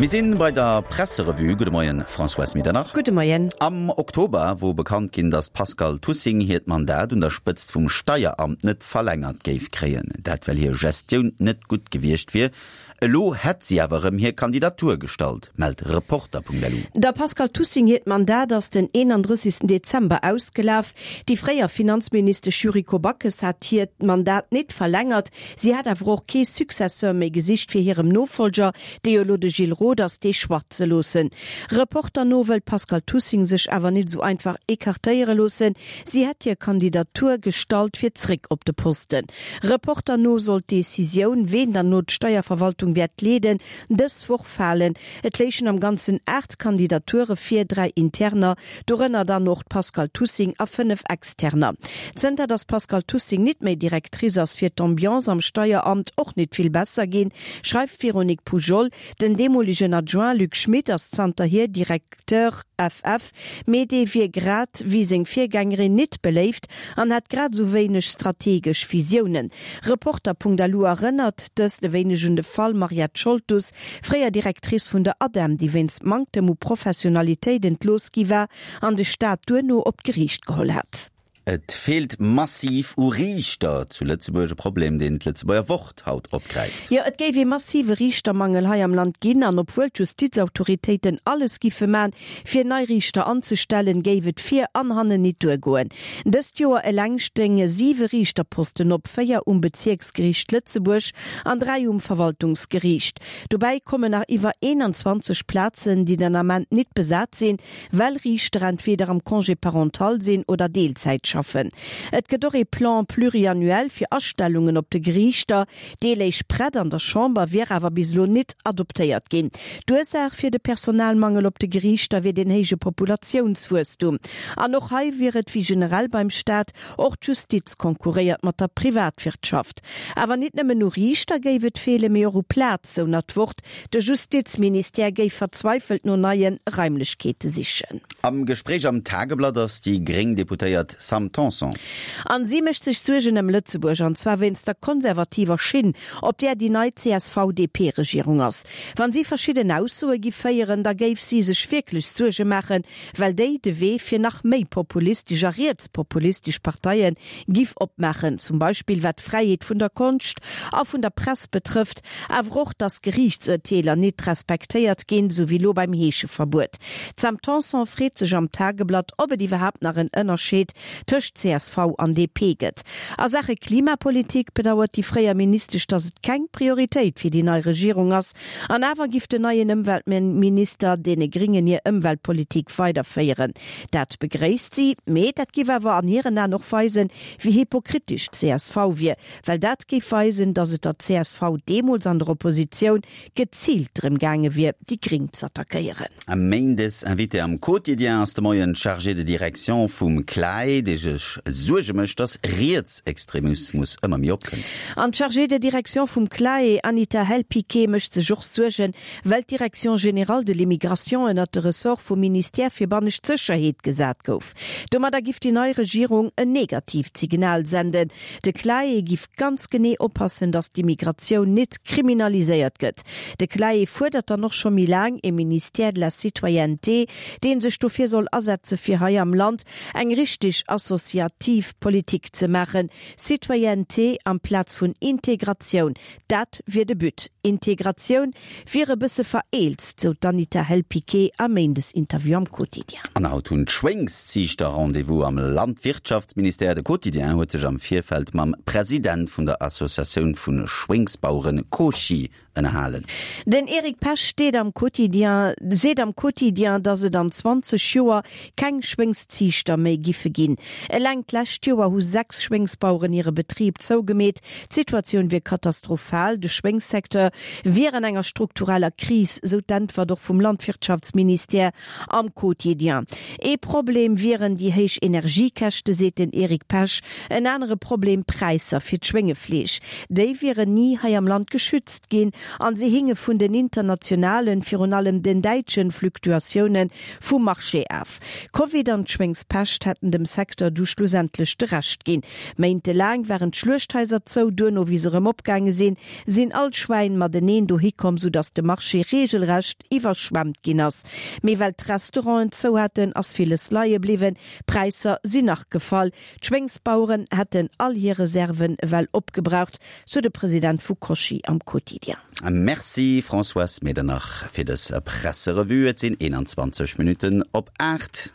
Mir sinn bei der Presserevue. Gudde Moien, Françoise Medernach. Gudde Moien. Am Oktober wor bekannt ginn, datt d'Pascale Tussing hiert Mandat un der Spëtzt vum Steieramt net verlängert géif kréien. Dat well hir Gestioun net gutt gewiescht wier. Elo hätt si awer erëm hir Kandidatur gestallt, mellt Reporter.lu. Der Pascale Tussing hiert Mandat ass den 31. Dezember ausgelaf. Déi fréier Finanzministesch Yuriko Backes hat hiert Mandat nit verlängert. Si hat awer och kee Successeur méi gesicht fir hirem Nofollger, dee jo elo de Gilles Roth ass, dee Choix ze loossen. Reporter no wëll d'Pascale Tussing sech awer nit esou einfach ecartéiere loossen. Si hätt hir Kandidatur gestallt fir zréck op de Posten. Reporter no soll d'Decisioun, ween dann elo d'Steierverwaltung wäert leeden, dës Woch falen. Et léichen am Ganzen 8 Kandidature vir, 3 interner, dorënner dann och d'Pascale Tussing, a 5 externer. Zënter datt d'Pascale Tussing nit méi Directrice ass, wier d'Ambiance am Steieramt och nit vill besser ginn, schreift d'Véronique Poujol. Den deemolegen Adjoint Luc Schmit ass zanterhier Directeur FF, mee dee wier grad wéi seng Virgängerin nit beléift an hätt grad esou wéineg strategesch Visiounen. Reporter.lu erënnert dëst e wéineg un de Fall Mariette Scholtus, fréier Directrice vun der ADEM, déi wéinst Manktem u Professionalitéit entlooss gi war an de Staat duerno op d'Geriicht geholl hat. Et feelt massiv u Riichter zu Lëtzebuerg, e Problem, deen d'Lëtzebuerger Wort haut opgräift. Jo, et géif ee massive Riichtermangel hei am Land ginn an obwuel d'Justizautoritéiten alles giffe man, fir nei Riichter anzestellen, géif et vir an hannen nit duergoen. Dëst Joer eleng stéinge siwe Riichterposten op, 4 um Bezierksgeriicht Lëtzebuerg an 3 um Verwaltungsgeriicht. Dobäi kommen nach iwwer 21 Plazen, déi den Ament nit besat sinn, well Riichter entweder am Congé parental sinn oder Deelzäit schaffen. Et gëtt och ee Plan pluriannuel fir Astellungen op de Geriichter. Dee léich prett an der Chamber, wier awer bis elo nit adoptéiert ginn. D'Ursaach fir de Personalmangel op de Geriichter wier den héije Populatiounswuesstum. An och hei wier et wéi generell beim Staat, och d'Justiz konkurréiert mat der Privatwirtschaft. Awer nit nëmmen u Riichter géif et feelen, mee och u Plaz, sou nach d'Wort. De Justizministère géif verzweifelt no neie Raimlechkeete sichen. Am Gespréich am Tageblatt ass déi gréng Deputéiert Sam Tanson. An si mécht sech Suergen ëm Lëtzebuerg, an zwar wéinst der konservativer Schinn, op där déi nei CSV-DP-Regierung ass. Wann si verschidden Aussoe giff féieren, da géif si sech wierklech Suerge maachen, well déi de Wee fir nach méi populistesch a rietspopulistesch Parteie giff opmaachen, zum Beispill wat d'Fräiheet vun der Konscht a vun der Press betrëfft, awer och, datt Geriichtsurteeler nit respektéiert ginn, sou wéi lo beim Heescheverbuet. D'Sam Tanson freet sech am Tageblatt, ob et iwwerhaapt nach en Ënnerscheed tëscht csv an DP gëtt. A Saache Klimapolitik bedauert déi fréier Ministesch, datt et keng Prioritéit fir déi nei Regierung ass, An awer giff den neien Ëmweltminister deene Gringen hir Ëmweltpolitik weiderféieren. Dat begréisst si, mee dat giff awer an hiren Aen och weisen, wéi hypokritesch d'CSV wier, well dat géif weisen, datt et der csv deemools an der Oppositioun geziilt drëm gaange wier, déi Gring z'attackéieren. Méindes Invité am Quotidien ass de Moien d'Chargée de direction vum CLAE, déi sech Suerge mécht, datt Rietsextremismus ëmmer méi opkënnt. An d'Chargée de direction vum CLAE, Anita Hell-Piqué, mécht sech och Suergen, well d'Direction générale de l'immigration ënnert de Ressort vum Ministère fir bannescht Sécherheet gesat gouf. Domadder giff déi nei Regierung en negatiivt Signal senden. De CLAE giff ganz genee oppassen, datt d'Immigratioun nit kriminaliséiert gëtt. De CLAE fuerdert dann och scho méi laang e Ministère de la citoyenneté, dee sech dofir soll asetze fir hei am Land eng richteg associativ Politik ze maachen, Citoyenneté amplaz vun Integratioun, dat wier de But. Integratioun wier e bësse vereelzt, sou d'Anita Hell-Piqué am Méindesinterview am Quotidien. An haut hunn d'Schwéngsziichter Rendez-vous am Landwirtschaftsministère. De Quotidien huet sech am Virfeld mam President vun der Associatioun vu Schwéngsbaueren Cosci ënnerhalen. Den Eric Pesch steet am Quotidien, seet am Quotidien, datt et an 20 Joer keng Schwéngsziichter méi giffe ginn. Eleng d'lescht Joer hu 6 Schwéngsbaueren hire Betrib zougemeet. D'Situatioun wier katastrophal, de Schwéngssecteur wier an enger struktureller Kris, sou d'Äntwert och vum Landwirtschaftsministère am Quotidien. Ee Problem wieren déi héich Energiekäschte, seet den Eric Pesch. En anere Problem, d'Präisser fir d'Schwéngefleesch. Déi wieren ni hei am Land geschützt ginn. an si hinge vun den internationalen, virun allem den däitschen, Fluktuatioune vum Marché af. Covid an d'Schwéngspescht hätten dem Secteur du schlussendlech de Rescht ginn. Méintelaang waren d'Schluechthaiser zou, duerno wéi se erëm opgaange sinn, sinn all d'Schwäin mateneen dohi komm, soudass de Marché reegelrecht iwwerschwemmt ginn ass. Mee well d'Restauranten zou haten, ass villes leie bliwwen, d'Präisser sinn nach gefall. D'Schwéngsbaueren hätten all hir Reserven ewell opgebraucht, sou de President vu Cochy am Quotidien. Merci Françoise Medernach fir dës Presserevue. Et sinn 21 Minutten op 8.